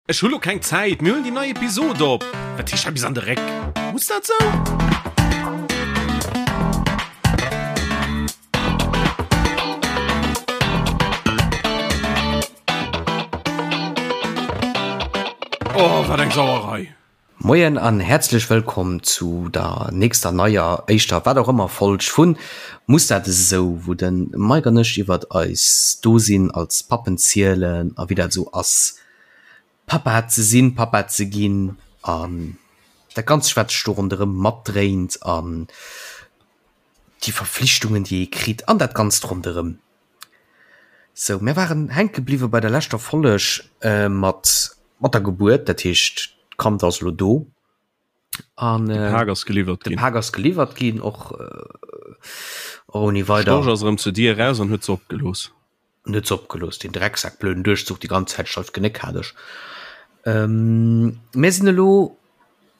Ech hu lo keng Zäit, mir huelen déi nei Episod op. Wat heescht hei bis an de Réck? Muss dat sou? Oh, wat eng Sauerei! Moien an häerzlech wëllkomm zu der nächster neier, éischter, wat och ëmmer Folg vun Muss dat esou, wou de Mike an ech iwwert eis Dosinn als Pappen zielen a wéi dat esou ass Papa ze sinn, Papa ze ginn an dat Ganzt wat sech do ronderëm matdréint an déi Verflichtungen déi ee kritt an dat Ganzt ronderëm. Sou, mir waren hänke bliwwe bei der leschter Folleg mat mat der Gebuert, dat heescht d'Kand ass elo do an De Pak ass geliwwert de ginn. Pak ass geliwwert ginn och ouni weider. Storch ass erëm zur Dier eraus an huet se opgelooss. En huet se opgelooss, deen Drecksak, blöden Duerchzuch, déi ganz Zäit steif Genéck hat ech. Mir sinn elo,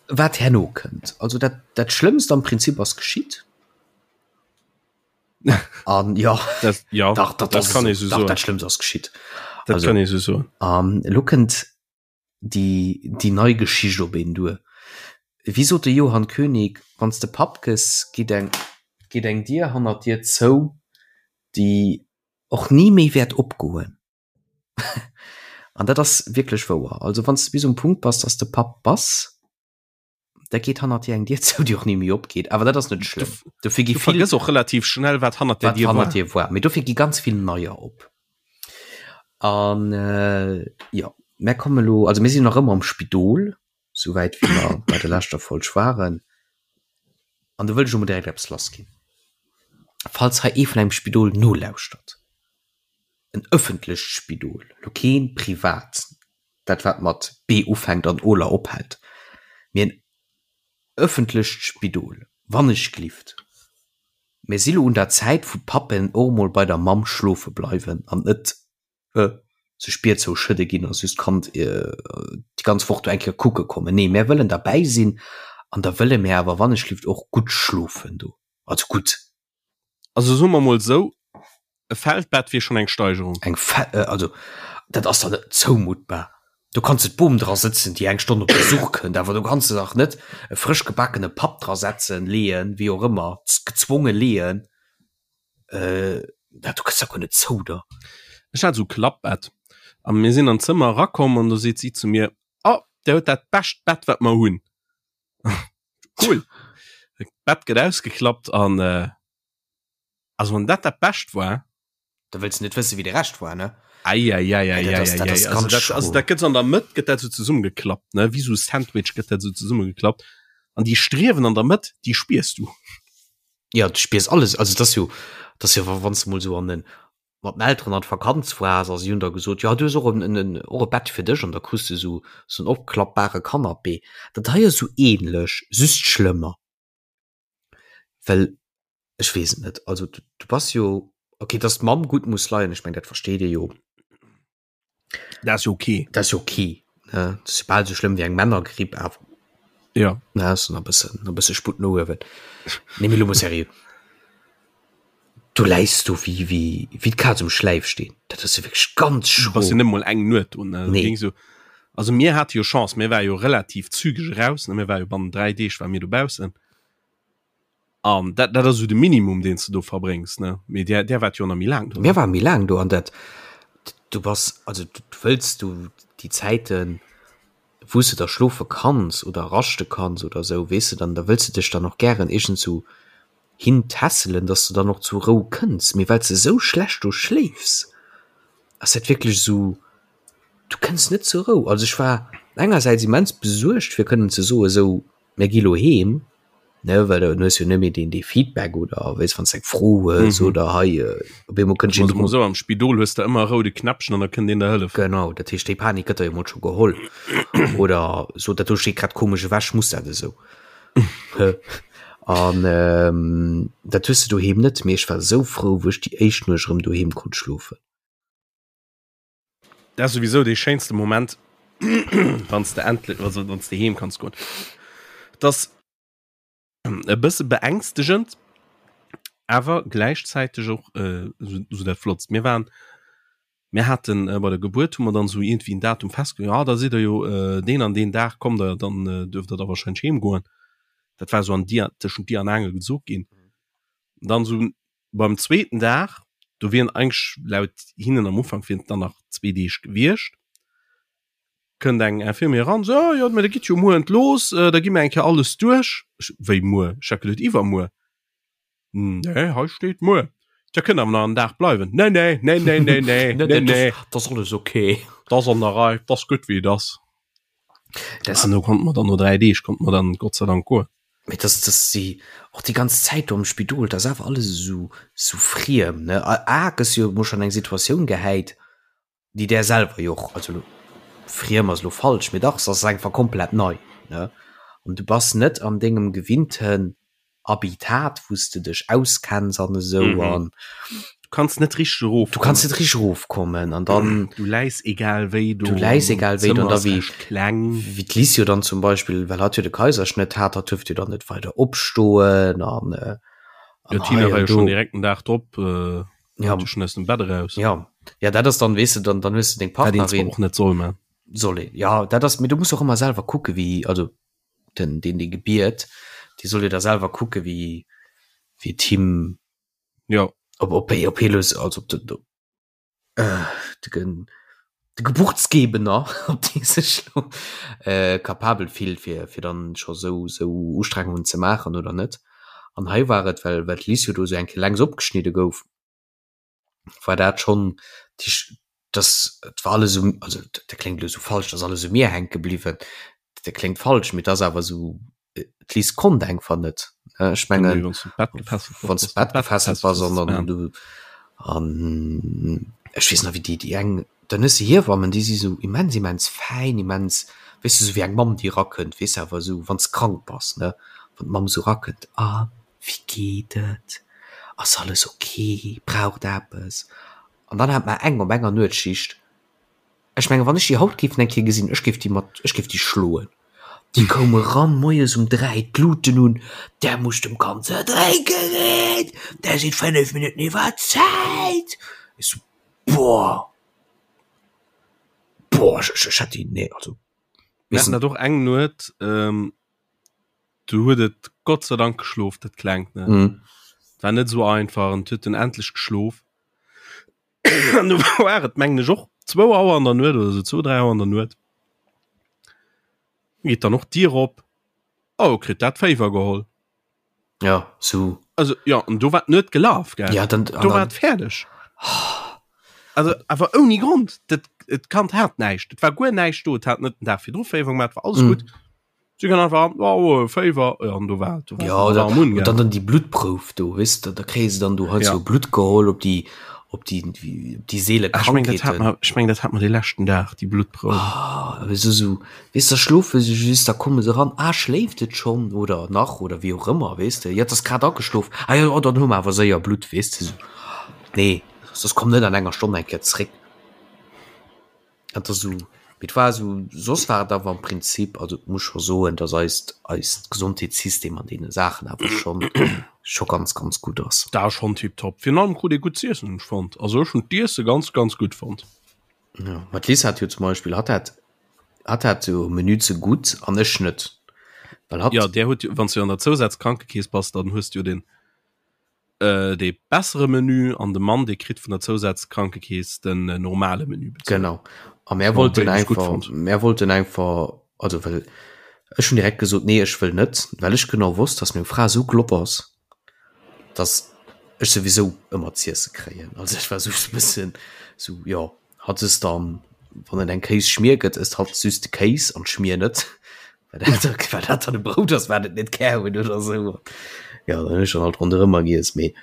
wat herno kënnt. Also dat, dat Schlëmmst am Prinzip ass geschitt. An jo, Dat, ja, dach, dat, dat kann ee sou dach, soen. dat Schlëmmst ass geschitt. Dat Also, kann ee sou soen. an elo kënnt déi, déi nei Geschicht op een duer. Wéi sot de Johann König, Wann s de Papp gëss, geet eng, geet eng Dier hannert dir zou, déi och ni méi wäert opgoen. An dat ass wierklech wouer. Also wann s de bis um Punkt bass, dass de Papp bass, da geet hannert dir eng Dier zou, déi och ni méi opgeet. Awer dat ass net schlëmm. Dofir gi vill. Du vergëss och relativ schnell, wat hannert där Dier war. Wat hannert dir war. Mee dofir gi ganz vill neier op. An jo, mär komme lo, also mir sinn nach ëmmer am Spidol, souwäit wéi mer bei der leschter Folg waren. An do wëll ech elo mol direkt eppes lassginn. Falls hei ee vun engem Spidol nolauschtert, en ëffentlecht Spidol, elo kee privat, dat wat mat B ufänkt an oler ophält, mee en ëffentlecht Spidol, wannechglift, mir si lo un der Zäit wou d'Pappen och emol bei der Mamm schlofe bleiwen an net sech d'Bier zou schëdde ginn a just d'Kand déi ganz Woch do eng Kéier kucke kommen. Nee, mär wëllen derbäi sinn an da wëlle mär awer wannechlift och gutt schlofen do. Also gutt. Also soe mer mol esou, e Feldbett wier schonn eng Steigerung. Eng Fe, also dat ass dach net zoumuttbar. Do kanns de d'Bom dra sëtzen, déi eng Stonn op Besuch kënnt, awer do kanns de dach net e frësch gebaakene Papp dra setzen, leeën, wéi och ëmmer, gezwonge leeën. Äh, dat du kënns da guer net zou der. Ech hat esou Klappbett a mir sinn an d'Zëmmer erakomm an do seet si zu mir, Oh, där huet dat bescht Bett, wat mer hunn. Cool. D'Bett gëtt ausgeklappt an äh, also wann dat dat Bescht war. Da wëlls de net wësse wéi de Rescht war, ne? Eieieiei. Dat ass ganz schro. Also dat gëtt an der Mëtt gëtt dat sou zesummegeklappt, ne? Wéi sou Sandwich gëtt dat sou zesummegeklappt an déi Striewen an der Mëtt, déi spiers du. Ja, du spiers alles. Also das jo, das jo wann du mol so an den mat den Elteren an d'Vakanz waars a si hunn der gesot, ja du hues och en, en, och e Bett fir dech an da krus du sou sou en opklappbare Canapé. Dat hei ass sou ähnlech, just schlëmmer. Well ech weess et net, also du, du bass jo, okay, dass d'Mamm gutt muss leien, ech meng dat versteet ee jo. Dat ass jo okay. Dat ass jo okay. Ne? Dat ass jo bal esou schlëmm wéi eng Männergripp, awer. Ja. Na, ass nach e bëssen, nach e bësse Sputt no uewen. Nee, mee lo mol seriö. Du läis do wéi, wéi, wéi d'Kaz um Schläifsteen. Dat ass jo wierklech ganz schro. Du bass jo net mol eng Nuet do, ne? Nee. Ging so, also mir hate jo Chance, mir war jo relativ zügeg eraus, ne? Mir war jo bannen 3 Deeg war mir dobaussen. An dat, dat ass esou de Minimum, deen s de do verbréngs, ne? Mee där, där waart jo nach méi laang do, ne? Mir ware méi laang do an dat, du bass, also du wëlls du déi Zäiten, wou s de da schlofe kanns oder raschte kanns oder esou, weess de, dann da wëlls de dech dann och gären iergendsou hin tässelen, dass de dann och zur Rou kënns. Mee well s de esou schlecht do schléifs, ass dat wierklech esou, du kënns net zur Rou. Also ech war engersäits immens besuergt, fir kënnen ze soen, esou, Mir gi lo heem, ne, well dann hues jo net méi deen dee Feedback oder weess wann s eng Fro hues mhm. oder hei äh, op eemol kënnt een so am Spidol hues de ëmmer roude Knäppchen an da kënnt een der hëllefen. Genau, dat heescht déi Panik gëtt der jo mol scho geholl oder so dat do steet grad komesch ewech, muss dat esou? An ähm, dat hues de doheem net, mee ech war esou frou, wou ech déi éischt Nuecht erëm doheem konnt schlofen. Dat ass souwisou dee schéinste Moment, wann s de endlech, also wann s de heem kanns goen. Dat ass e bësse beängstegend, awer gläichzäiteg och esou dat Flottst. Mir waren. Mir haten äh, bei der Gebuert hu mer dann esou iergendwéi en Datum festge ja da sidd der jo äh, deen an deen Dag kommt der, dann äh, duerft der da wahrscheinlech heem goen. Dat war esou an Dier, tëschent Dier an Aangel gesot ginn. Dann esou beim zweeten Dag, do wieren eigentlech laut hinnen am Ufank wieren et dann nach zwee Deeg gewiescht, kënnt eng Infirmière eran, so, oh, jo, mä da gitt jo muer entlooss, äh, da gi mer eng Kéier alles duerch. Ech, wéi muer? Ech hat geduet iwwermuer. Nee, hei steet muer. Dir kënnt awer nach en Dag bleiwen. Nee, nee, nee, nee, nee, nee, nee, nee. Dat ass alles okay. Dat ass an der Rei, dat ass gutt wéi et ass. Das An do konnte mer dann no 3 Deeg konnte mer dann Gott sei Dank goen. Mee dass, dass si och déi ganz Zäit do am Spidol, dat ass awer alles esou, esou friem, ne? A gëss jo emol schonn eng Situatioun gehäit, déi där selwer jo och, also elo friem ass elo falsch, mee dach, se ass einfach komplett nei, ne? An du bass net an dengem gewinnten Habitat, wou s de dech auskenns an esou an. Du kanns net richteg erof. Du kanns net richteg erofkommen an dann. Du läis egal wéi do. Du läis egal wéi do an da wéi. Kleng. Wéi d'Liz jo dann zum Beispill, well hatt jo de Kaiserschnëtt hat, hatt duerft jo dann net weider opstoen an. Jo, d'Tina war jo schonn direkt den Dag drop. Ja. Schon aus dem Bett eraus. Ja. Ja, dat ass dann, weess de, dann, dann hues de deng Partnerin. Och net soll man. Soll een. Ja, dat ass, mee du muss och ëmmer selwer kucke wéi, also den, deen dee gebiert, dee soll jo da selwer kucke wéi, wéi et him. Ja. Ob, ob, ob hie lo, also ob de, äh, de, de Geburtsgebener, ob dee sech lo äh, capabel fillt, fir, fir dann scho sou, sou Ustrengungen ze maachen oder net. An hei war et, well, well d'Liz jo do sou eng Kéier längs opgeschnidde gouf, war dat schonn, dass, et war alles um, also dat kléngt elo sou falsch, dass alles u mir hänke bliwwen, dat kléngt falsch, mee et ass awer sou, d'Liz konnt einfach net. Ech mengen, wann s du d'Bett gefesselt wann s du d'Bett gefesselt bass an dann du an ech weess nach wéi déi déi eng dann hues de Hiewammen, déi si sou immens immens fäin, immens weess de sou wéi eng Mamm déi erakënnt, weess de awer esou wann s krank bass ne, wann d'Mamm sou erakënnt, a wéi geet et, ass alles ok, braucht der eppes? An dann hat mer eng op enger Nuetsschicht, Ech mengen, wann ech déi haut géif eng Kéier gesinn, ech géif déi mat, ech géif déi schloen. Déi koum eran moies um 3, d'Luten un, Der musst dem Kand ze drénke ginn, der sidd 5 Minutten iwwer Zäit. Ech sou, boah, boah, ech, ech, ech hätt déi, nee, also. Mir haten dat och eng Nuet, ähm, du huet et Gott sei Dank geschlof, dat Klengt, ne. Mm. War net esou einfach, an et huet en endlech geschlof. An du war et mengen ech och zwou Auer an der Nuet oder sou, zwou, dräi Auer an der Nuet. Geet dann och d'Dier op. Oh, kritt dat Féiwer geholl. Ja, sou. Also ja, an do war d'Nuet gelaf, gell? Ja, dann, do war et fäerdeg. Also awer ouni Grond. Dat, et Kand hat näischt. Et war guer näischt do. Et hat net den Dag virdru Féiwer gemaach, war alles mm. gutt. Sie kann einfach oh, Féiwer ja, an do war, do war ja, da, und dann dann die Blutprouf do wisst da, da kréie se dann du halt ja. so Blut geholl op die op die op die Seele ah, ich mein, dat hat man, ich mein, dat hat man de leschten Dag die Blutprouf ah, so, so, weißt, da schlofe se just da komme se ran ah, schléift et schon oder nach oder wie auch immer weißt du ja das grad ageschlof ah, ja, oh, dann hu mer awer séier Blut weißt du so. nee das kommt net an enger Stonn eng Kéier zréck Et ass esou, mee et war esou, soss war et awer am Prinzip, also et muss scho soen, datt eist, eist Gesondheetssystem an deene Saachen awer schonn, scho ganz, ganz gutt ass. Dat ass schonn tiptop. Virun allem krut ee gutt z'iessen, hunn ech fonnt. Also ech hunn d'Iesse ganz, ganz gutt fonnt. Jo, ma d'Liz hat jo zum Beispill, hatt hat, hatt hat jo Menü ze gutt an ech net, well hatt. Jo, där huet jo, wann s du an der Zousazkrankekeess bass, dann hues du jo den dee bessere Menü an de Mann dee kritt vun der Zousazkrankekeess den normale Menü bezuelt. Genau. A mär wollten einfach, mär wollten einfach, also well ech hunn direkt gesot, nee ech wëll net, well ech genau wosst, datt meng Fra esou glopp ass, datt ech souwisou ëmmer z'iesse kréien. Also ech war esou e bëssen esou, jo hatt ësst dann, wann et eng Kéisschmier gëtt, ësst hatt just de Kéis an d'Schmier net. Well dat dann e Brout ass, wat et net gär hunn oder esou. Jo, dann hunn ech dann halt ronderëmmer giess, mee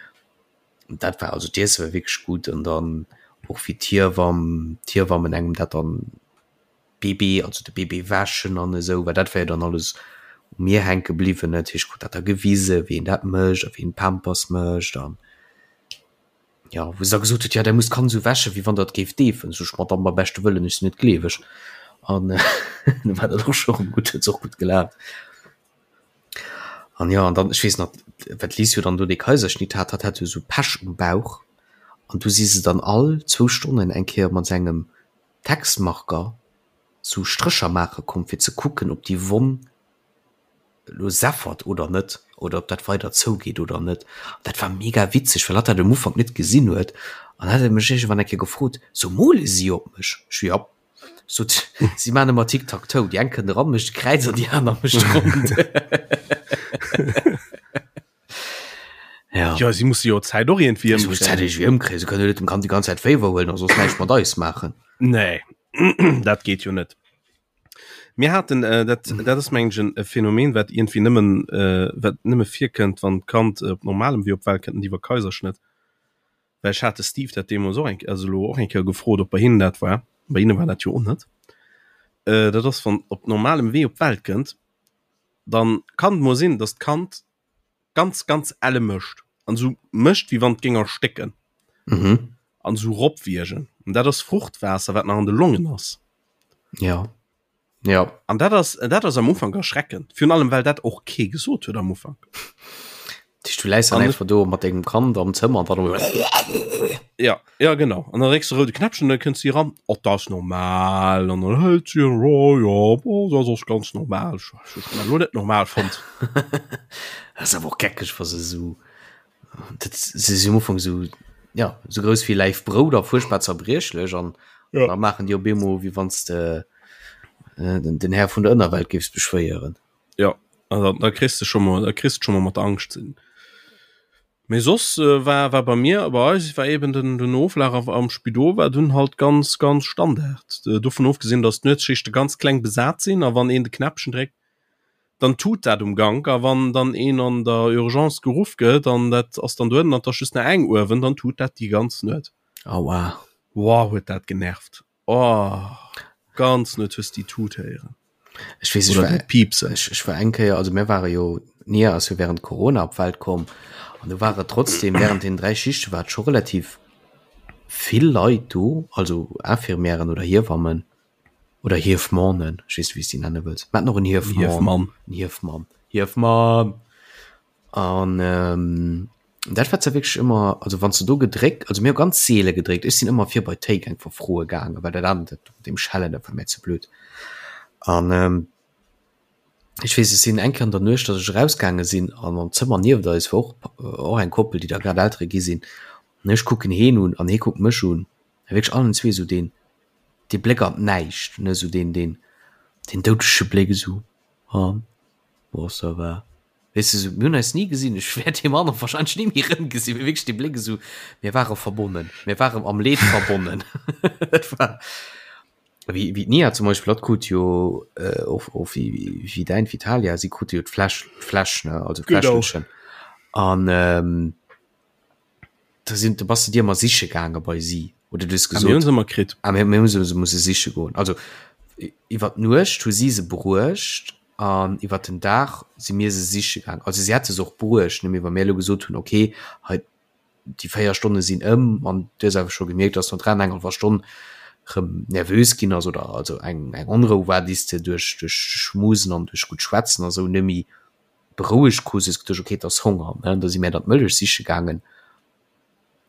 dat war, also d'Iesse war wierklech gutt an dann och wéi d'Hiewamm, d'Hiewammen engem dat dann Bébé, also de Bébé wäschen an esou, well dat war jo dann alles u mir hänke bliwwen, dat heescht, ech krut dat da gewisen, wéi een dat mécht a wéi een d'Pampers mécht an. Jo, wou se da gesot huet, jo, Der musst d'Kand esou wäschen, wéi wann Der et géift deefen. Sot ech, Madame, beim beschte Wëllen, ech sinn net gleeweg. An du war dat och scho rëm gutt, huet se och gutt gelaacht. An jo, an dann, ech weess nach, well d'Liz jo dann do dee Kaiserschnitt hat, hatt hat jo esou Pech um Bauch. An du si se dann all zwou Stonnen eng Kéier mat engem Textmarker sou Strécher maache komm fir ze kucken ob déi Wonn elo seffert oder net oder ob dat weider zougeet oder net. An dat war mega witzeg, well hatt dat um Ufank net gesinn huet an hat e mech iergendwann eng Kéier gefrot, So mole si op mech? Ech so, Jop. Sot, si maachen ëmmer Tic-Tac-Toe, déi eng kënnt eran, mécht e Kräiz an déi aner mécht rond. Ja. Ja, si musse jo d'Zäit och iergendwéi Si musse d'Zäit iergendwéi ëmkréien. Si kënnen jo net dem Kand déi ganz Zäit Féiwer huelen a soss näischt mat eis maachen. Nee, dat geet jo net. Mir haten, äh, dat, dat ass mengen ech en e Phänomen, wat iergendwéi nëmmen, äh, wat nëmme virkënnt, wann d'Kand op normalem Wee op d'Welt kënnt, net iwwer Kaiserschnëtt. Well ech hat de Steve dat deemools och eng, also elo och eng Kéier gefrot, ob bei hinnen dat war. Bei hinne war dat jo och net. Äh, dat ass, wann op normalem Wee op d'Welt kënnt, dann kann et mol sinn, dass d'Kand ganz ganz elle mécht an esou mécht wéi wann et géing erstécken mhm. an esou ropwiergen an dat ass Fruchtwaasser wat nach an de Longen ass. Ja ja an dat ass dat ass am Ufank erschreckend virun allem well dat och kee gesot huet am Ufank. Du läis dann einfach do mat dengem Kand am Zëmmer an dann Ja ja genau an dann drécks de roude Knäppchen dann kënnt si ran oh dat ass normal an dann hëlt si oh ja oh dat ass ganz normal ech ech hunn dat elo net normal fonnt. Dat ass awer och geckeg wa se esou dat se si um Ufank esou ja esou grouss wéi Läif Brout a fuerchtbar zerbriechlech an Ja. da maachen déi op eemol wéi wann s de den den Här vun der Ënnerwelt géifs beschwéieren. Ja also da kriss de scho mol da kriss de scho mol mat der Angscht ze dinn. Mee soss war war bei mir bei eis war eben den den Oflaf am Spidol war dunn halt ganz ganz Standard. Dovun ofgesinn, datt d'Nuetsschichte ganz kleng besat sinn a wann een de Knäppchen dréckt, dann tut dat um Gank a wann dann een an der Urgence geruff gëtt an dat ass dann dohennen an 't ass just nach eng uewen, dann tut dat déi ganz Nuet. Aua. Woah huet dat genervt. Oh, ganz net hues déi Tut héieren. Ech weess, ech war, Piepsen. Ech, ech war eng Kéier, also mir ware jo, d'Nia ass jo während Corona op d'Welt komm an do ware trotzdem während den 3 Schichte war et scho relativ vill Leit do, also Infirmièren oder Hiewammen oder Hiefmannen, ech weess net wéi s déi nenne wëlls. Mir haten och en Hiefmann. Hiefmann. En Hiefmann. Hiefmann! An ähm, dat war zwar wierklech ëmmer, also wann s de do gedréckt, also mir hu ganz seele gedréckt, ech sinn ëmmer vir bei d'Théik einfach froe gaangen, well dat anert, dat mat deem Schellen, dat war mir ze blöd. An ähm, ech weess, ech sinn eng Kéier an der Nuecht, datt ech erausgaange sinn an am Zëmmer nieft eis war och och eng Koppel, déi da grad Eltere gi sinn. An ech kucken heen un an hee kuckt mech un, a wierklech allen zwee esou deen, dee Bléck an d'Näischt, ne, esou deen, deen, deen doudege Bléck esou, an, bon, ça va. Weess de, mir hunn eis ni gesinn, ech wäert deem anere wahrscheinlech ni méi erëmgesinn, mee wierklech dee Bléck esou, mir ware verbonnen, mir waren am Leed verbonnen. Dat war wéi, wéi d'Nia zum Beispill, hatt krut jo äh, och, och wéi, wéi däin Vitalia, si krute jo d'Fläsch, d'Fläsch, ne, also d'Fläschelchen. An ähm, Da sinn, du bass de dir ëmmer siche gaange bei si oder du hues gesot. Ah, mir hunn se ëmmer kritt. Ah, mir, mir hu se musse siche goen. Also iwwer d'Nuecht hu si se bruecht an iwwer den Dag si mir se siche gaangen. Also si hätte se och bruecht, ne, mee wa mir elo gesot hunn, okay, hei déi 4 Stonne sinn ëm an du hues awer scho gemierkt, dass no 3 an eng hallwer Stonn rëm nervös ginn ass oder also eng eng Onrou war, déi s de duerch duerch Schmusen an duerch gutt Schwätzen a sou net méi berouegt krus, hues geduecht, okay, et ass Honger, ne, da si mär dann d'Mëllech siche gaangen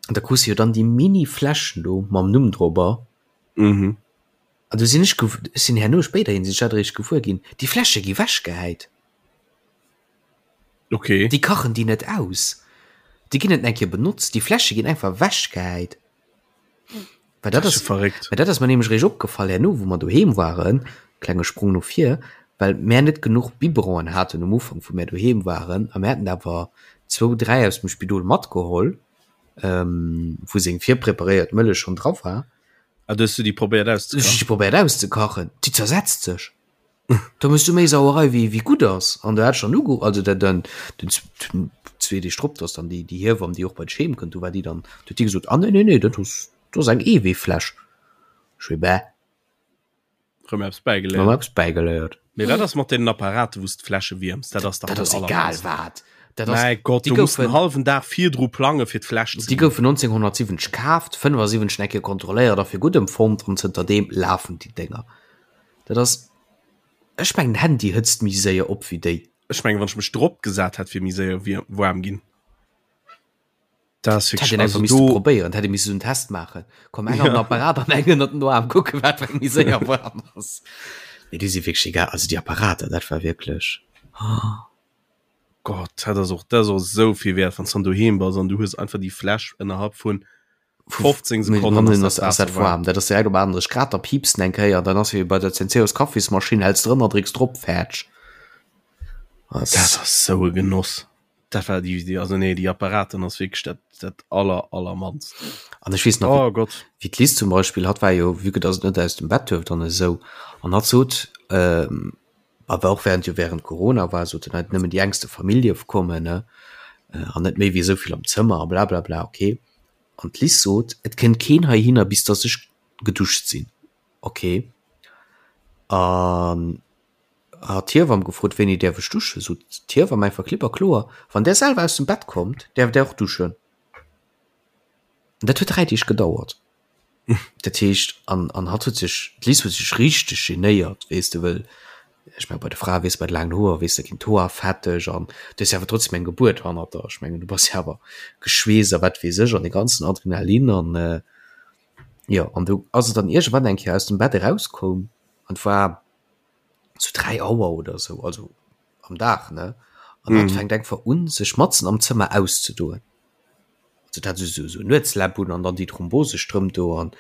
an da krus de jo dann déi mini Fläschen do mam Numm drobber. Mhm. An du sinn ech, ech sinn herno spéiderhin sinn ech dat eréischt gewuer ginn, déi Fläsche gi wechgehäit. Okay. Déi kachen déi net aus, déi ginn net eng Kéier benotzt, déi Fläsche ginn einfach wechgehäit. Well dat ass verréckt. Well dat ass mer nämlech eréischt opgefall herno, wou mer doheem waren, klenge Sprong no vir, well mär net genuch Biberonen haten um Ufank, wou mär doheem waren, a mär haten awer zwou, dräi aus dem Spidol matgeholl, wou seng virpreparéiert Mëllech schonn dra war. Ah, du hues du déi probéiert auszekachen? Ech hu déi probéiert auszekachen, déi zersetzt sech. Da mëss du méi Sauerei wéi wéi gutt ass. An du hat schon uge also dat dann den zwee Deeg drop, dass dann déi déi Hiewamm déi och bei d'Scheem kënnt, du war déi dann du huet déi gesot, ah nee nee nee dat ass dat ass eng Eeweefläsch. Ech wéi bäh. Rëm eppes bäigeléiert. Rëm eppes bäigeléiert. Mee wat ass mat deenen Apparaten wou s d'Fläsche wierms? Dat ass dach Dat ass egal wat. Dat ass Mäi Gott, déi du muss goufen den hallwen Dag virdru plange fir d'Fläsch ze Déi goufen 1970 kaaft, 75 eng Kéier kontrolléiert a fir gutt empfonnt an zënterdeem lafen déi Dénger. Dat ass, ech mengen Handy hëtzt méi séier op wéi déi. Ech mengen wann ech mech drop gesat hätt wier méi séier waarm ginn. Dat ass Hätt een einfach misste probéieren, hätt ee misse sou en Test maachen. Komm eng an den Apparat an eng ënnert den Aarm, kucke wat fir eng méi séier waarm ass. Mee déi si wierklech egal, also déi Apparater, dat war wierklech. Gott, dat ass och, dat ass och esou vill wäert, wann s dann doheem bass an du hues einfach déi Fläsch ënnerhalb vun 15 Sekonnen ass dat Waasser waarm. Dat ass direkt op 38 Grad, da piipst en eng Kéier, dann ass wéi bei der Zenseos Kaffismaschinn, häls drënner, drécks drop, fäerdeg. Dat ass esou e Genoss. Dat war déi, déi, also nee, déi Apparaten ass wierklech dat, dat aller, allermannst. An ech weess nach, oh Gott. wéi d'Liz zum Beispill, hatt war jo, vue que dass et net aus dem Bett duerft an esou, an hatt sot, ähm, awer och während, jo während Corona war, sot en, nëmmen déi engste Famill dierf kommen, ne, an net méi wéi esou vill am Zëmmer a blablabla, okay. An d'Liz sot, et kënnt keen heihinner, bis dass ech geduscht sinn, okay. An Hat d'Hiewamm gefrot, wéini däerf ech duschen? Sot d'Hiewamm einfach klipp a kloer, Wann där selwer aus dem Bett kommt, däerft där och duschen. An dat huet 3 Deeg gedauert. Dat heescht, an, an hatt huet sech, d'Liz huet sech richteg genéiert, weess de, wëll, ech mengen, bei de Frae, weess de, bei de laangen Hoer, weess de, ginn d'Hoer fetteg an du hues jo awer trotzdem eng Gebuert hannert der. Ech mengen, du bass jo awer geschweesst a wat weess ech an de ganzen Adrenalin an, jo, an du ass et dann iergendwann eng Kéier aus dem Bett erauskoum an et war, zu 3 Auer oder sou, also am Dag ne an mm. fänkt einfach un sech matzen am Zëmmer auszedoen. Also dat so so Nuetsläpp un an dann déi Thrombosestrëmp do an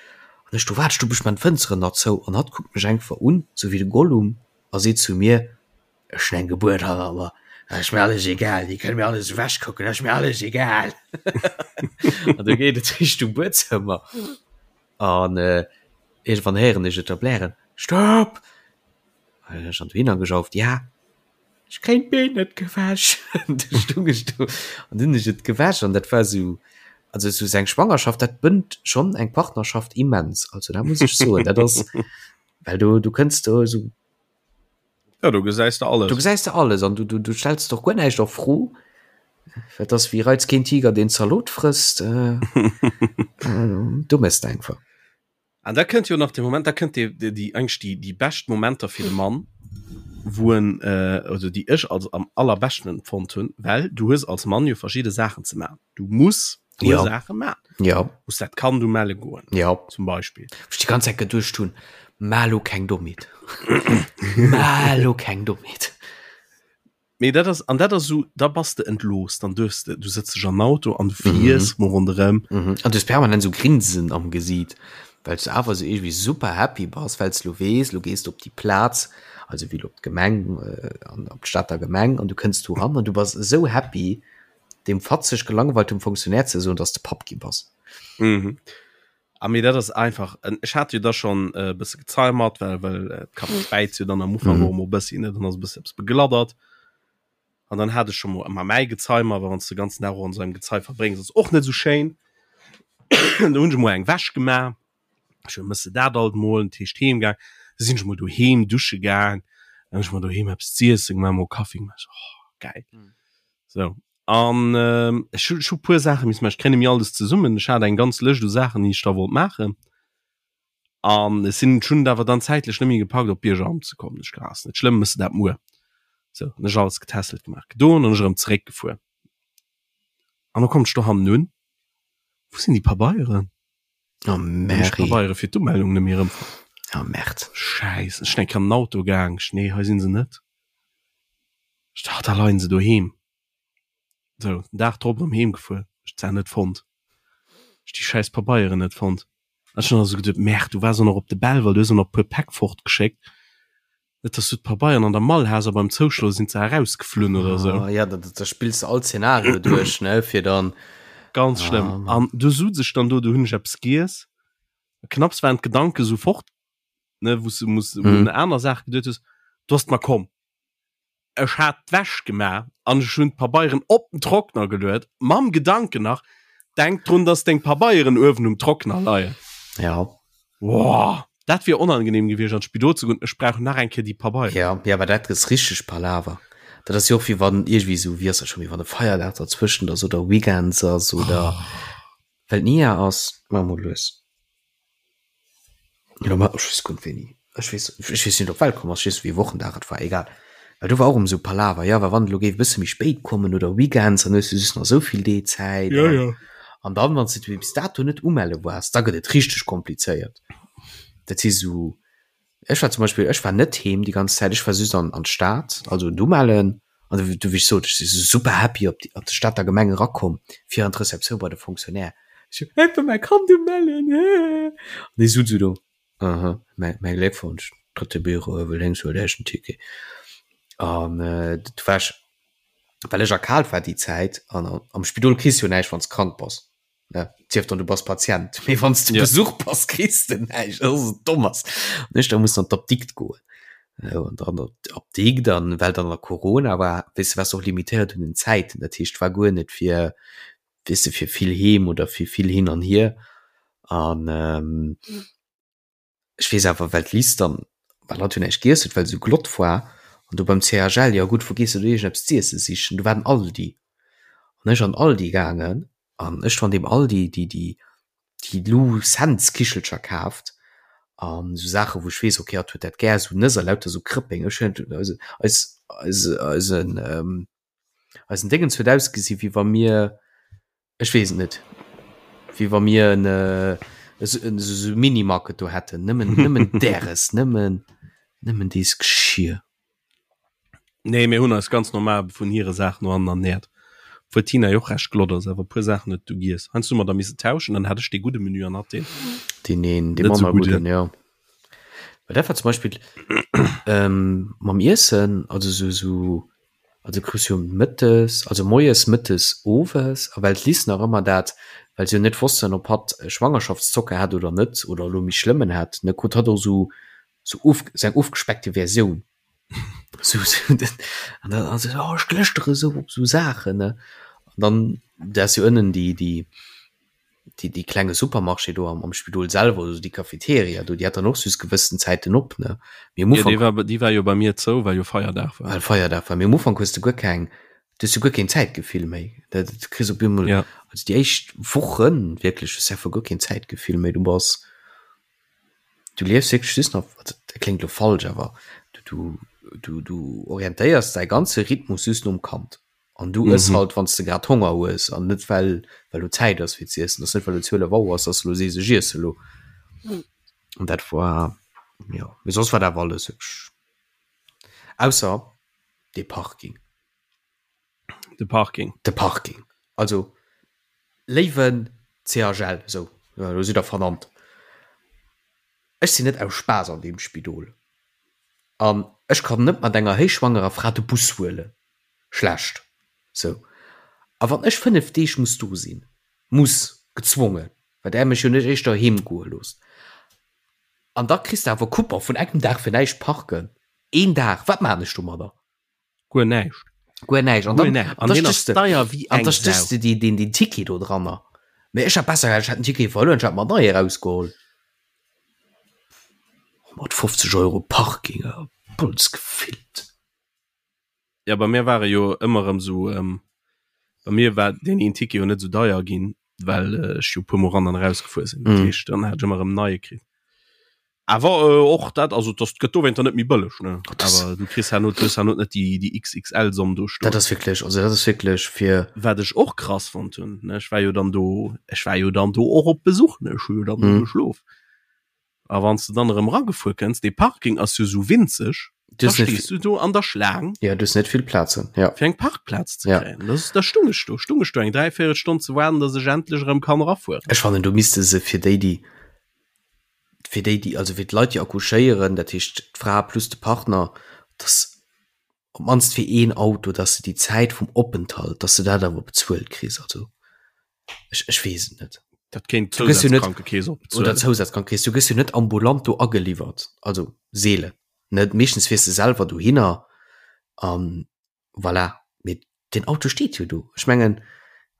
an ech do wat du bech man Fënsteren nach zou an hatt kuckt mech einfach un sou wéi de Gollum a seet zu mir ech hunn eng Gebuert hanner mer ass mir alles egal, déi kënne mir alles ewech kucken, ass mir alles egal. An du geet et Richtung Buedzëmmer an äh, Iergendwann héieren ech et da blären, Stopp! An ech an dohinner gejauft, Ja, ech kréien d'Been net gewäsch. Du stung ech do an dunn hunn ech et gewäsch an dat war esou, also esou seng Schwangerschaft, dat bënnt schonn eng Partnerschaft immens. Also dat muss ech soen, dat ass, well du, du kënns do esou. Ja, du gesäis de alles. Du gesäis de alles an du, du, du stells doch guer näischt a Fro. Dat ass wéi reiz keen Tiger deen Zalot frësst. Äh, äh, du mëss einfach. An da kënnt jo nach de Moment, da kënnt déi, déi, déi eigentlich déi, déi bescht Momenter fir de Mann, wou en, äh, also déi ech als am allerbeschten empfonnt hunn, well du hues als Mann jo verschidde Saachen ze maachen. Du muss ja. Sache man ja muss dat kann du melle goen ja zum Beispiel ich die ganze Zeit geduercht hun Malo keng Dommheet Malo keng Dommheet Nee, dat ass an dat ass so da bass de entlos dann duerfs de du sëtz dech an Auto an du fiers mhm. mo ronderëm mhm. an du permanent so grinsen am Gesiit well du awer so irgendwie super happy bass well du wees du gehst op die Platz also wie op d'Gemeng äh, an op d'Stater Gemeng an du kënns du ran an du bass so happy deem fatzeg gelangweiltem Fonctionnaire ze soen, dass de Papp gi bass. Mhm. A mee dat ass einfach, ech hat jo da schonn e bësse Gezei mat, well well d'Kap späizt jo dann am Ufank och emol e bëssi, ne, dann ass e bëssi eppes begladdert. An dann hat ech scho mol ëmmer mäi Gezei mat, well wann s de ganzen Dag och an esou engem Gezei verbréngs, ass och net esou schéin. Do hunn ech emol eng Wäsch gemaach. Ech hu mësse dat alt mol, dat heescht heem gaang. Da sinn ech mol doheem dusche gaang, dann hunn ech mer doheem eppes z'iessen gemaach, mol Kaffi gemaach, ech so, oh geil. Sou, an ech hu, ech hu puer Saache missen maachen. Ech kréien net méi alles zesummen. Ech hat eng ganz Lëscht u Saachen, déi ech da wollt maachen. An ech sinn, ech hunn et awer dann zäitlech net méi gepackt, op d'Biergeramt ze kommen. Ech gedacht, ass net schlëmm, méchs de dat muer. Sou, hunn ech alles getässelt gemaach, gedoen an ech erëm zeréckgefuer. An da kommen ech dohannen un, Wou sinn déi Pabeieren? Oh Mary. Pabeiere fir d'Umeldung net méi erëmfonnt. Oh Merde. Schäiss, ech sinn eng Kéier an den Auto gaang, ech, nee, hei sinn se net. Ech dacht, da leien se doheem. Sou, den Dag drop erëm heem gefuer, ech d'Saach net fonnt. Ech déi schäiss Pabeieren net fonnt. An ech hunn also geduet, Merde, du waars och nach op de Belval, du hues och nach e puer Päck fortgeschéckt. Net, dass du d'Pabeieren an der Mall has a beim Zouschloe sinn se erausgeflunn oder sou. Ah, ja, da, da spills de all Szenario duerch, ne, fir dann. Ganz schlëmm. Ah, An du sutz ech dann do, du hunn ech eppes giess. Knapps waren d'Gedanke sou fort, ne, wou s du muss un aner Saache geduet hues, du ass et mer komm. Ech hat d'Wäsch gemaach an ech hunn d'Pabeieren op den Trockner geluet, mam Gedanken nach, Denk drun, dass deng Pabeieren uewen um Trockner leien. Ja. Woah, dat wier onangenehm gewiescht an d'Spidol ze goen, ech brauch nach eng Kéier déi Pabeieren. Ja, ja, awer dat ass richteg Palaver. Dat ass jo och wéi wann iergendwéi esou, wéi ass dat scho méi, wann e Feierdag derzwëschent ass oder Weekends ass oder well d'Nia ass, maache mol lues. Elo mat, ech weess guer net wéini, ech weess, ech weess net op Welt komm ass, ech weess net wéi Wochendag et war, egal. Well do war och erëm esou Palaver, jo, well wann et elo géif e bësse méi spéit kommen oder Weekends, dann hues du just nach esou vill Dee Zäit Ja, ja. An dann, wann s de bis dato net umelle waars, da gëtt et richteg komplizéiert. Dat si sou, ech war zum Beispill, ech war net heem déi ganz Zäit, ech war just an an d'Stad, also d'Umellen. An du, du wéi ech sot, ech si super happy op déi op d'Stater Gemeng erakomm, fir an d'Receptioun bei de Fonctionnaire. Ech sou, ech wëll mäi Kand umellen, hee. An dee sot sou do, aha, mäi mäi Gléckwonsch, drëtte Büro, uewe lénks, huelt Iech en Ticket. An du war ech well ech erkaalt war déi Zäit an am Spidol kriss jo näischt wann s krank bass ne sief dann du bass Patient mee wann s du ja. Besuch bass kriss de näischt dat ass domm ass an ech da muss an d'Apdikt goen an dann op d'Apdikt an well dann der Corona war weess de waars och limitéiert un den Zäiten dat heescht war guer net fir weess de fir vill heem oder fir vill hin an hier an ähm, Ech weess awer, well d'Liz dann, well hatt jo näischt giess huet, well se esou glott war, an do beim CHL, jo gutt, wou gees de do iergendeppes z'iessen sichen, do war den Aldi. An ech an den Aldi gaangen an ech do an deem Aldi déi, déi, déi Lou Cents Kichelcher kaaft an esou Saachen, wou ech weess, okay, hatt huet dat gär, esou Nëss a lauter esou Krëppeng. Ech hunn eise, eis, eise, eisen, eisen Déngens huet ausgesi wéi wa mir, Ech weess et net. Wéi wa mir en esou Minimarket do hätten. Nëmmen, nëmmen däres, nëmmen, nëmmen dees Geschir. Nee, mir hunn eis ganz normal vun hire Saachen no an ernährt. Obwuel d'Tina jo och recht glott ass, awer e puer Saachen huet du giess. Heiansdo hu mer da misse tauschen, dann hat ech dee gudde Menü an hatt deen. Deen een, dee manner gudden, jo. Well dat war zum Beispill ähm, mam Iessen, also sou, sou Also krus jo mëttes, also moies, mëttes, owes, a well d'Liz nach ëmmer dat, well se jo net wossten, ob hatt Schwangerschaftszocker hat oder net, oder elo méi schlëmmen hat, ne, krut hatt och sou, sou of, sou eng ofgespeckte Versioun. Sou, sou, an dann, an se sou, oh, ech glëschtere sou op sou Saachen, ne. An dann, da ass jo ënnen déi, déi, déi, déi klenge Supermarché do am, am Spidol selwer, also déi Cafeteria do, déi hat dann och just gewëssen Zäiten op, ne? Mee am Ufank. Ja, déi war, déi war jo bei mir zou, well jo Feierdag war. Well Feierdag war. Mee am Ufank hues de guer keng, du hues jo guer keen Zäitgefill méi. Dat, du kriss op eemol, ja. also déi éischt Wochen wierklech, hues de einfach guer keen Zäitgefill méi. Du bass, du liefs wierklech just nach, also dat kléngt elo falsch, awer du, du, du, du orientéiers däi ganze Rhythmus just nom Kand. An du ëss mhm. halt wann du grad Honger hues an net well well du Zäit ass fir ze iessen, ass net well du 12 Auer ass, dass du lo sees ech iesse lo. An dat war ja mee soss war dat alles hübsch. Ausser de Parking. De Parking. De Parking. Also léiwen CHL sou lo sidd der vernannt. Ech sinn net aus Spaass an deem Spidol an ech kann net mat enger héichschwangerer Fra de Bus huelen. Schlecht. Sou. A wann ech 5 Deeg muss do sinn, muss, gezwongen, well där mech jo net éischter heem goe loosst, an da kriss de awer Coupon vun engem Dag fir näischt parken, een Dag, wat maan ech domadder? Guer näischt. Guer näischt. An dann, an da stéchs de, an da stéchs de déi, deen, deen Ticket do dranner. Mee ech hätt besser gehat, ech hätt den Ticket verluer, ech hätt mer en neie erausgeholl. 150 Euro Parking, Bolz gefillt. Ja bei mir ware jo ëmmer erëm sou ähm, bei mir war deen een Ticket jo net sou deier ginn, well äh, ech jo puer mol ran an erausgefuer sinn. Dat mm. heescht, dann hat ech ëmmer erëm neie kritt. Awer äh, och dat also das gëtt dowéinter net méi bëlleg ne awer du kriss herno du hues herno net déi déi XXL Somm do stoen. Dat ass wierklech also dat ass wierklech fir Wat ech och krass fonnt hunn ne ech war jo dann do ech war jo dann do och op Besuch ne ech hu jo dann do mm. geschlof. A wann s de dann erëm eragefuer kënns, dee Parking ass jo sou winzeg, da stees du do an der Schlaang. Ja, du hues net vill Plazen, ja. Fir eng Parkplaz ze kréien. Ja. Da stung ech do, stung ech do eng dräivéierel Stonn ze waarden, datt ech endlech erëm kann erafueren. Ech fannen, do misste se fir déi, déi, fir déi, déi, also fir d'Leit, déi accouchéieren, dat heescht d'Fra plus de Partner, datt op d'mannst fir een Auto, datt s de déi Zäit vum Openthalt, datt s de dat awer bezuelt kriss. Also ech, ech weess et net. Dat kéint d'Zousazkrankekeess och bezuelen. Oder d'Zousazkrankekeess. Du gëss jo net ambulant do ageliwwert, also seelen, net? Meeschtens fiers de selwer dohinner an voilà. Mee Den Auto steet jo do. Ech mengen,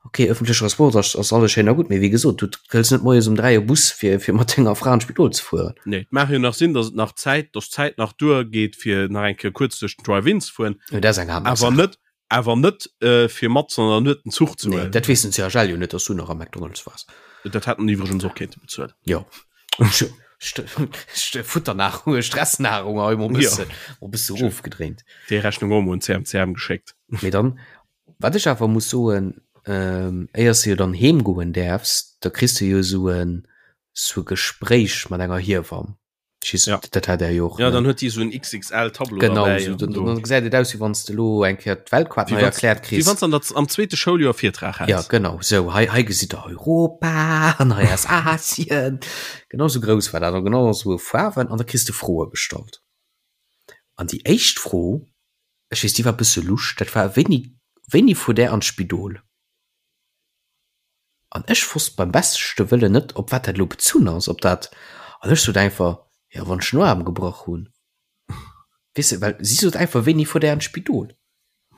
ok, ëffentleche Transport ass, ass alles schéin a gutt, mee wéi gesot, du hëls net moies um 3 e Bus, fir, fir mat denger Fra an d'Spidol ze fueren. Nee, et mag jo nach sinn, datt et nach Zäit, datt d'Zäit nach duergeet, fir nach eng Kéier kuerz duerch den Drive-In ze fueren. Jo, dat ass eng aner Awer Saach. net, awer net, fir matzen an der Nuet den Zuch ze Nee, huelen. dat weess den CHL jo net, datt s du nach am McDonald's waars. Dat hätten iwwregens och kéinte bezuelen. Jo. Futternahrung, Stressnahrung hei mol bëssen, mol bësse rofgedréint. Déi Rechnung och mol un CMCM geschéckt. Mee dann, wat ech awer muss soen, ähm, éiers du jo dann heem goen däerfs, da kriss du jo esou en sou e Gespréich mat enger Hiewamm. Ich weess, Ja. dat hat er jo och. Ja, ne? dann huet déi esou en XXL-Tableau Genau, derbäi so, an dann, do. dann gesäit et aus, wéi wann s de lo eng Kéier d'Weltkaart Wéi nei wanns- erkläert Wéi kriss. wann s an der, am zweete Schouljoer Virtrag Ja, häls. genau, sou, hei, hei gesitt der Europa an hei ass Asien. Genau sou grouss war dat an genau sou Faarwen an da kriss de Froe gestallt. An déi éischt Fro, ech weess, déi war e bësse lusch, dat war, Wéini, wéini fuert Där an d'Spidol? An ech wosst beim beschte Wëllen net, op wat dat elo bezunn ass, ob dat, an ech sot einfach, jo, wann ech den Aarm gebrach hunn. Weess de, well si sot einfach, wéini fuert Där an d'Spidol?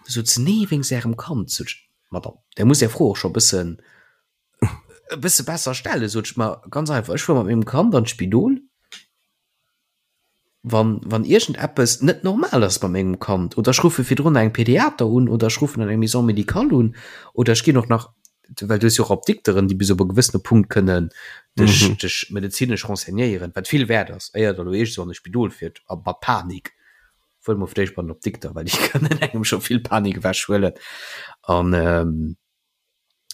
Du sot se, nee, wéinst Ärem Kand. Sot ech, Madame, Der musst Är Fro och scho e bëssen, e bësse besser stellen. Sot ech, ma ganz einfach, ech fuer mat mengem Kand an d'Spidol. Wann, wann iergendeppes net normal ass bei mengem Kand, oder ech ruffe virdrun engem Pediater un, oder ech ruffen an eng Maison médicale un, oder ech ginn och nach, well du hues jo och Apdikteren, déi bis op e gewëssene Punkt kënnen dech, mhm. dech medezinesch renseignéieren, wat vill wäert ass, éier der lo iergend sou an e Spidol fiert a mat Panik. Fuer mol fir d'éischt bei den Apdikter, well déi kënnen engem scho vill Panik ewechhuelen. An ähm,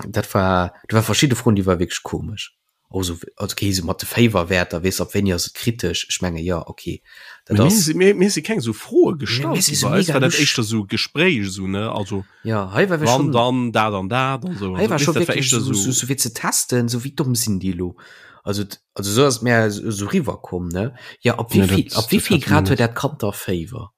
Dat war, do war verschidde Froen, déi war wierklech komesch. Och esou, also okay, esou mat de Féiwerwäerter, weess op wéini ass et kritesch? Ech menge jo, okay, dat Mir ass. si mir, mir si keng esou Froe Mir, gestallt mir si gi. sou Bei eis mega war dat lusch. éischter esou Gespréich esou, ne? Also Ja, hei war wir wann schon, dann dat an dat an esou. hei Also war weess scho dat war wierklech éischter esou, esou. esou, esou fir ze testen, esou wéi domm sinn déi elo? Also, also esou ass et mir esou riwwerkomm, ne? Ja, op Nee, wéivill, dat, op dat wéivill hat mir Grad huet net. dat Kand da Féiwer?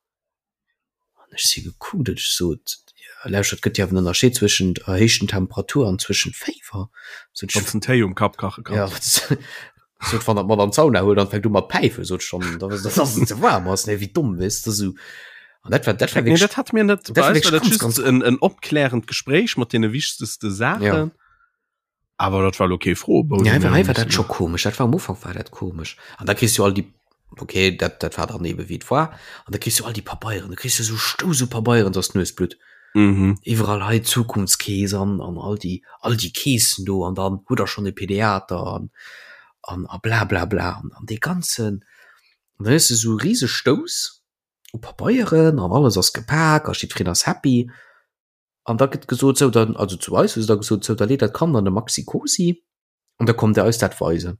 An ech si gekuckt an ech sot, jo lauschtert, et gëtt jo awer en Ënnerscheed zwëschent erhéichten Temperatur an zwëschent Féiwer. Sot ech, Wann s den Téi um Kapp kache ja, kanns. sot, wann der d'Madame d'Sauna huelt an fänkt u mat päifen, sot ech, dann, dann ass et ze waarm ass, nee, wéi domm, weess de, sou. An dat war, dat war Nee, wierklech, dat hat mir net. dat Bei war eis war wierklech dat ganz, just ganz, en, en opklärend Gespréich mat deene wichtegste ja. Saachen. Awer dat war lo kee Froebou, Ja, dee mir hei hu war dat mussen scho komesch. Dat war am Ufank war dat komesch. An da kriss du all déi, okay, dat, dat war dann ebe wéi et war. An da kriss du all déi Pabeieren, du kriss jo sou Stouss u Pabeieren, dass d'Nues blutt. Mhm. Iwwerall hei Zukunftskeess an, an all déi, all déi Keessen do an dann hutt der schonn e Pediater an, an, a bla bla bla. An, an dee ganzen, an dann hues du sou e rise Stouss u Pabeieren an alles ass gepak a jiddwereen ass happy. An da gëtt gesot, sou dann, also zu eis hu se da gesot, sou da leet dat Kand an de Maxi-Cosi an da kommt der eis dat weisen.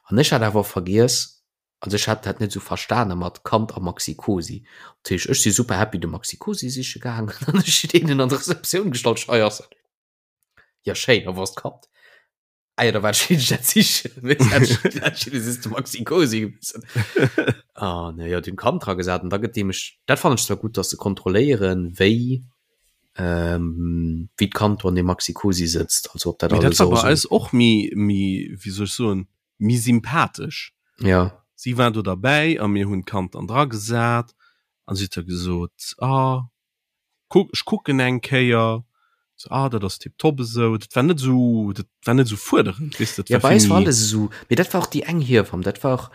An ech hat awer vergiess, also ech hat dat net esou verstane mat Kand a Maxi-Cosi. Dat heescht, ech si super happy de Maxi-Cosi siche gaangen an ech hunn deenen an d'Receptioun gestallt, hei ass en. Ja schéin, a wou ass d'Kand? Ah ja, da war ech dat sichen. Das ist Maxi Cosi gewesen. Ah, ne, ja, den Kand dra gesat an da gëtt deemech, dat fand ech zwar gut, dass se kontrolléieren, wéi ähm, wéi d'Kand do an dem Maxi Cosi sëtzt, also ob dat Mee dat alles war och bei so. eis och méi, méi, wéi soll ech soen, méi sympathesch. Ja. Si war do derbäi a mir hunn d'Kand dann dra gesat an si huet da gesot, ah, Kuck, ech kucken eng Kéier, so, ah, dat ass tiptop esou. Dat war net esou, dat war net esou fuerderend, weess de, dat Ja, war bei eis vill war méi. alles esou, mee dat war och déi eng Hiewamm, dat war och,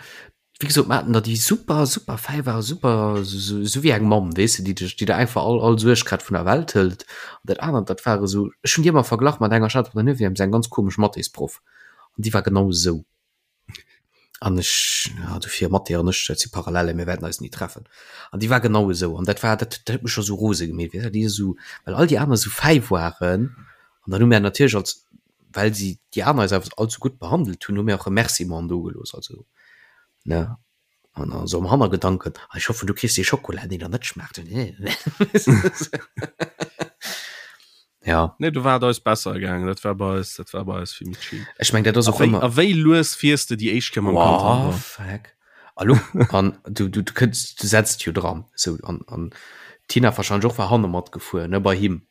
wéi gesot, mer haten der déi super, super fäi war, super, esou, esou wéi eng Mamm, weess de, déi dech, déi der einfach all, all Suerg grad vun der Welt hëlt. An dat anert, dat war esou, ech hunn déi ëmmer verglach mat enger, ech hat op der Neuvième esou eng ganz komesch Mathésproff an déi war genau esou. An ech, ja, dofir Mathé an ech, dat si Parallelen, mir wäerten eis ni treffen. An déi war genau esou. An dat war, dat, dat huet mech scho sou rose gemeet, weess de, déi esou, well all déi aner esou fäi waren. An dann hu mär natierlech als, well si déi aner eis awer all sou gutt behandelt hunn, hu mär och Remerciementen dogelooss, also, ne. An dann esou am Hannergedanken, ah, ech hoffen, du kriss dee Schokola, deen der net schmaacht. Ja. Nee, do war et eis besser gaangen. Dat war bei eis, dat war bei eis vill méi chill. Ech meng, dat ass A och wéi, ëmmer. a wéi lues fiers de déi éischt Kéier mam Kand Wow, an der? fuck. Hallo? An du, du, du kënns, du setzt jo dran. Sou, an, an d'Tina wahrscheinlech och war hanne matgefuer, ne, bei him.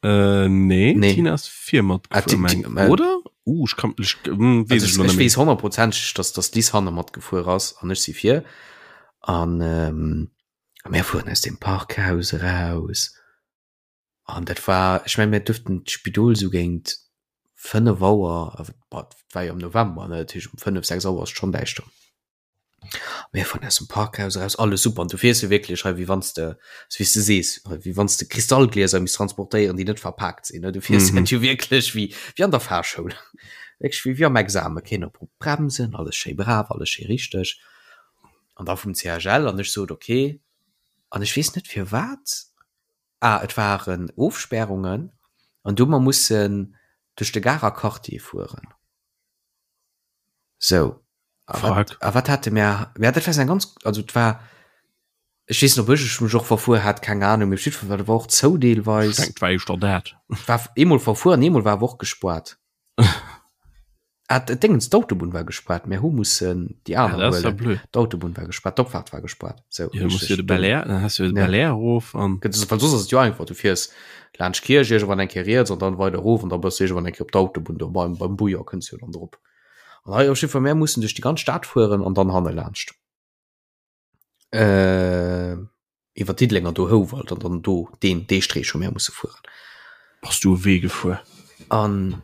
Äh, nee, Nee. Tina ass vir Ah, matgefuer, Ti- meng, Ti- äh, oder? Uh, ech kann, ech, hm, weess Also ech ech, elo net ech méi. weess honnertprozenteg, dass, dass d'Lis hanne matgefuer ass an ech si vir. An, ähm, a mir fueren aus dem Parkhaus eraus. An dat war, ech meng, mir duerften d'Spidol sou géint 5 Auer, awer et war jo am November, ne, dat heescht um 5, 6 Auer ass et schonn däischter. Mir fueren aus dem Parkhaus eraus, alles super, an du fiers jo wierklech hei wéi wann s de, sou wéi s de sees, wéi wann s de Kristallglieser misst transportéieren, déi net verpaakt sinn, ne, du fiers dat jo wierklech wéi, wéi an der Fahrschoul, wierklech wéi, wéi am Examen, keen op Bremsen, alles schéi brav, alles schéi richteg. An da vum CHL, an ech sot, okay, an ech weess net firwat, Ah, et waren Ofspärungen. An du hu mer mussen duerch de Garer Quartier fueren. Sou. A wat, a wat hate mär? Ja, dat war eng ganz, also et war, ech weess net, ob ech mech och verfuer hat, keng Ahnung, mee op jiddwer Fall, dat war och zou deelweis. Ech denken, et war éischter dat. War eemol verfuer an eemol war awer och gespuart. Ah, d'Déngens, d'Autobunn war gespaart, mär hu mussen déi aner ah, huelen. Blöd. D'Autobunn war gespaart, d'Opfahrt war gespaart. So, ja, musst du de Bel Air, dann hast du de Bel Air erof an. Well soss ass et jo einfach, du fiers laanscht Kierch iergendwann eng Kéier riets an dann weider erof an da bass du iergendwann eng Kéier op d'Autobunn do beim, beim Bouillon kënns du jo dann drop. An hei op jiddwer Fall, mär mussen duerch déi ganz Stad fueren an dann hanne laanscht. Äh, iwwer Diddelenger do Houwald an dann do deen dee Streech hu mär musse fueren. Bass du e Wee gefuer? An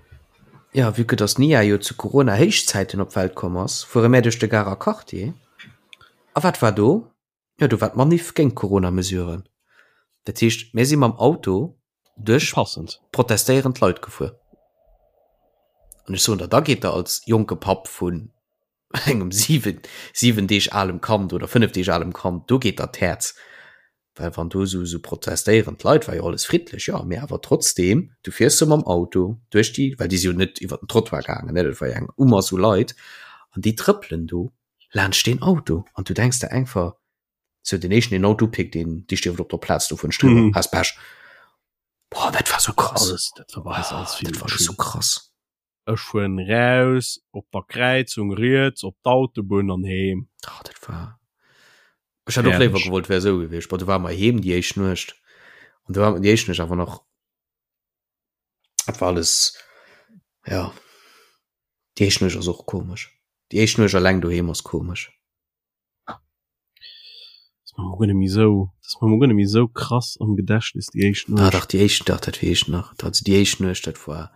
ja, vue que dass d'Nia jo zu Corona-Héichzäiten op d'Welt komm ass, fuere mär duerch de Garer Quartier. A wat war do? Jo, do war d'Manif géint d'Corona-Mesuren. Dat heescht, mär si mam Auto duerch Passend. protestéierend Leit gefuer. An ech soen der, da geet der als jonke Papp vun engem 7, 7 Deeg alem Kand oder 5 Deeg alem Kand, do geet der d'Häerz. Well wann do esou, esou protestéierend Leit, war jo alles friddlech, jo, mee awer trotzdem, du fiers do mam Auto duerch déi, well déi si jo net iwwer den Trottoir gaangen, ne, dat war jo eng Umass u Leit, an déi trëppelen do laanscht deen Auto an du denks der einfach, sou den éischten deen Auto upickt, deen, dee stierft op der Plaz do vun Striewer, has Pech. Boah, dat war sou krass. Alles, dat war bei eis alles vill Dat war sou krass. Ech fueren raus op der Kräizung riets op d'Autobunn an heem. Ah, dat war. Ech hätt och léiwer gewollt wär esou gewiescht. Bon, du war mer heem déi éischt Nuecht an du war déi éischt Nuecht awer nach dat war alles ja déi éischt Nuecht ass och komesch. Déi éischt Nuecht alleng doheem ass komesch. Das war mir guer net méi sou, das war mir guer net méi sou krass am Gedächtnis déi éischt Nuecht. Ah dach, déi éischt, dach dat weess ech nach. Also déi éischt Nuecht, dat war,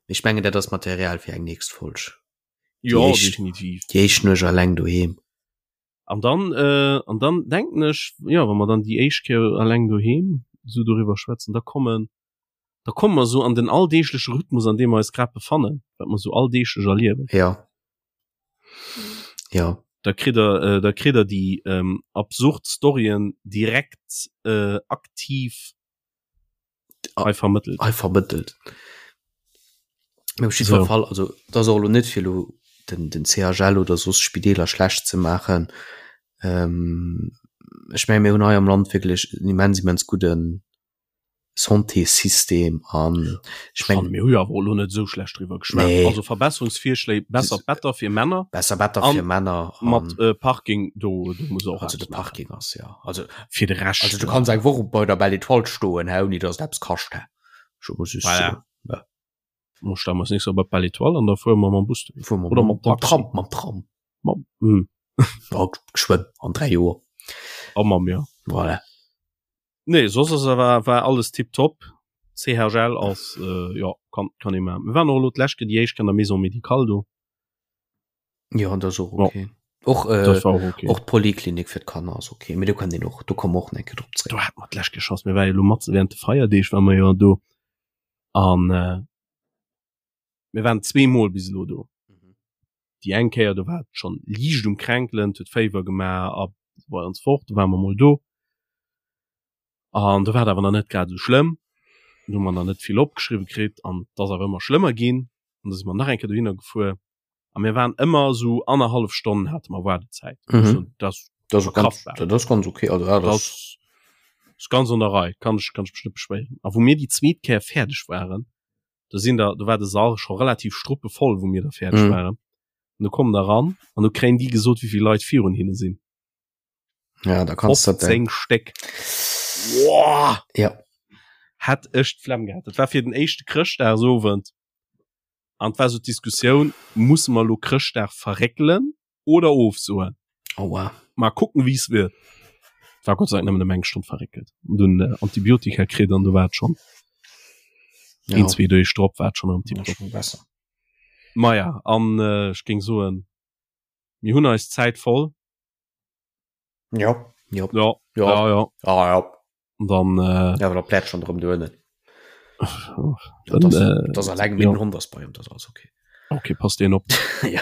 mee ech mengen dat ass Material fir eng nächst Folg. Jo, definitiv. Déi éischt Nuecht alleng doheem. An dann, äh, an dann denken ech, jo, wa mer dann déi éischt Kéier alleng doheem sou doriwwer schwätzen, da kommen, da komme mer sou an den alldeegleche Rhythmus, an deem mer eis grad befannen, wat mer sou alldeeglech erliewen. Jo. Ja. Da kritt der, äh, da kritt der déi ähm, absurd Storyen direkt äh, aktiv hei vermëttelt. Hei vermëttelt. Mee op jiddwer so. Fall, also dat ass och elo net fir elo den, den CHL oder soss Spideeler schlecht ze maachen. Ähm, ech menge mir hunn hei am Land wierklech en immens, immens gudden Santéssystem an ech mengen mir hu jo awer elo net esou schlecht driwwer geschwat. Nee. Also Verbesserungsvirschléi, besser Better fir Männer. Besser Better fir Männer mat äh, Parking do, do muss och also de Parking ass ja also fir de Rescht. Also du kanns eng Woch bei der Belle Étoile stoen hä ouni datt et eppes kascht hä. Scho muss just voilà. Ja. Mo stelle mer nächst Joer bei d'Belle Étoile an da fuere mer mam Bus dohin. Fuere mer Oder mam Tram, mam Tram. Mam, hm. Ja, geschwënn an 3 Joer. A mam ja. Voilà. Nee, soss ass war, war alles tiptop. CHL ass äh, ja, kann, kann ee maachen. Mir waren och elo d'lescht Kéier déi éischt Kéier an der Maison médicale do. Ja, dat ass och okay. Ja. Och, äh, Dat war och okay. och d'Poliklinik fir d'Kanner ass okay. Mee do kann een och, do komme mer och nach eng Kéier drop zréck. Do hate mer d'lescht Kéier Chance. Mir ware jo elo mat während de Feierdeeg ware mer jo do. An äh, mir waren zweemol bis elo do. Déi eng Kéier, do war et schonn liicht um Kränkelen, et huet Féiwer gemaach a sou weider an sou fort. Do ware mer mol do an do war et awer nach net grad esou schlëmm. Do hu mer nach net vill opgeschriwwe kritt an et ass awer ëmmer schlëmmer ginn an da si mer nach eng Kéier dohinner gefuer a mir waren ëmmer esou annerhallef Stonn hate mer Waardezäit. Mhm. Dat ass Dat ass ganz, dat ass ganz okay. Also, ja, dat ass ganz an der Rei, kann ech, kann ech mech net beschwéieren. A wou mir déi zweet Kéier fäerdeg waren, do sinn der, do war de Sall scho relativ struppevoll, wou mir da fäerdeg mm. waren. An du kommen da ran an du kréien déi gesot, wéi vill Leit virun hinne sinn. Ja, da kannst du 15 Stéck. Boah! Ja. Hat ech d'Flemm gehat. Dat war fir den éischte Chrëschtdagsowend. An war so d'Diskussioun, musse mer lo Chrëschtdag verréckelen oder ofsoen. Aua. Mal kucken wéi es wird. War Gott sei Dank nëmmen ëm eng Stonn verréckelt. An dunn äh, Antibiotika kritt an du war et schon. Ja. Een, zwee Deeg drop war et schon erëm Ja, tiptop. schon besser. Maja, an äh, ech géing soen, mir hunn eis Zäit voll. Ja. Ja. Ja, Ja. ja, ja. Ah, ja. Und dann äh, Ja, aber da plärt schon drëm duernen. Dann, Das, äh, das alleng ja. mit dem Hond ass bei ihm, das alles okay. Okay, passt den op. ja.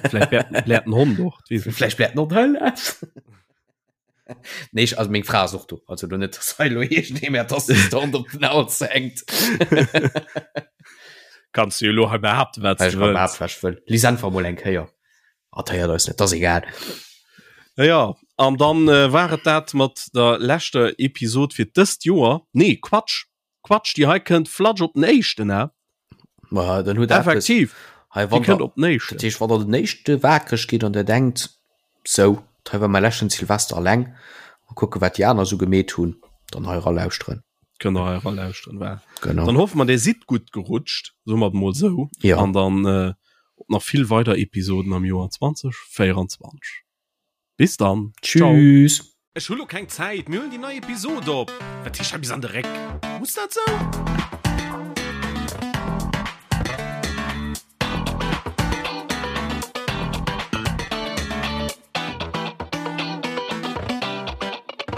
Vielleicht blärt, blärt den Hond och. Vielleicht blärt noch Hölle. Nee, ich, also meng Fra ass och do. Also do net, dass hei lo iergendee mir d'Assistent op den Hals hänkt. Kanns du jo lo hei behaapten, wat du wëlls. Behaapten, wat ech wëll. Lies einfach mol eng Kéier. Hat héiert eis net, ass egal. Ja, ja. An dann äh, war et dat mat der leschter Episod fir dëst Joer. Nee, Quatsch. Quatsch, déi hei kënnt flatsch op den éischten, hä? Ma dann huet Effektiv. Hei, wann kënnt op den éischten. Dat heescht, wann der den éischte wakereg gitt an der denkt, sou, hei war mäi leschten Silvester alleng, mol kucke wat déi aner sou gemeet hunn, dann hei eralauschteren. Kënnt der hei eralauschteren, war. Genau. Dann hoffe mer, dir sidd gutt gerutscht, soe mer et mol sou. Ja. An dann äh, op nach vill weider Episoden am Joer 2024. Bis dann. Tschüss. Ech hu lo keng Zäit, mir huelen déi nei Episod op. Wat heescht hei bis an de Réck? Muss dat sou?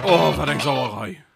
Oh, wat eng Sauerei!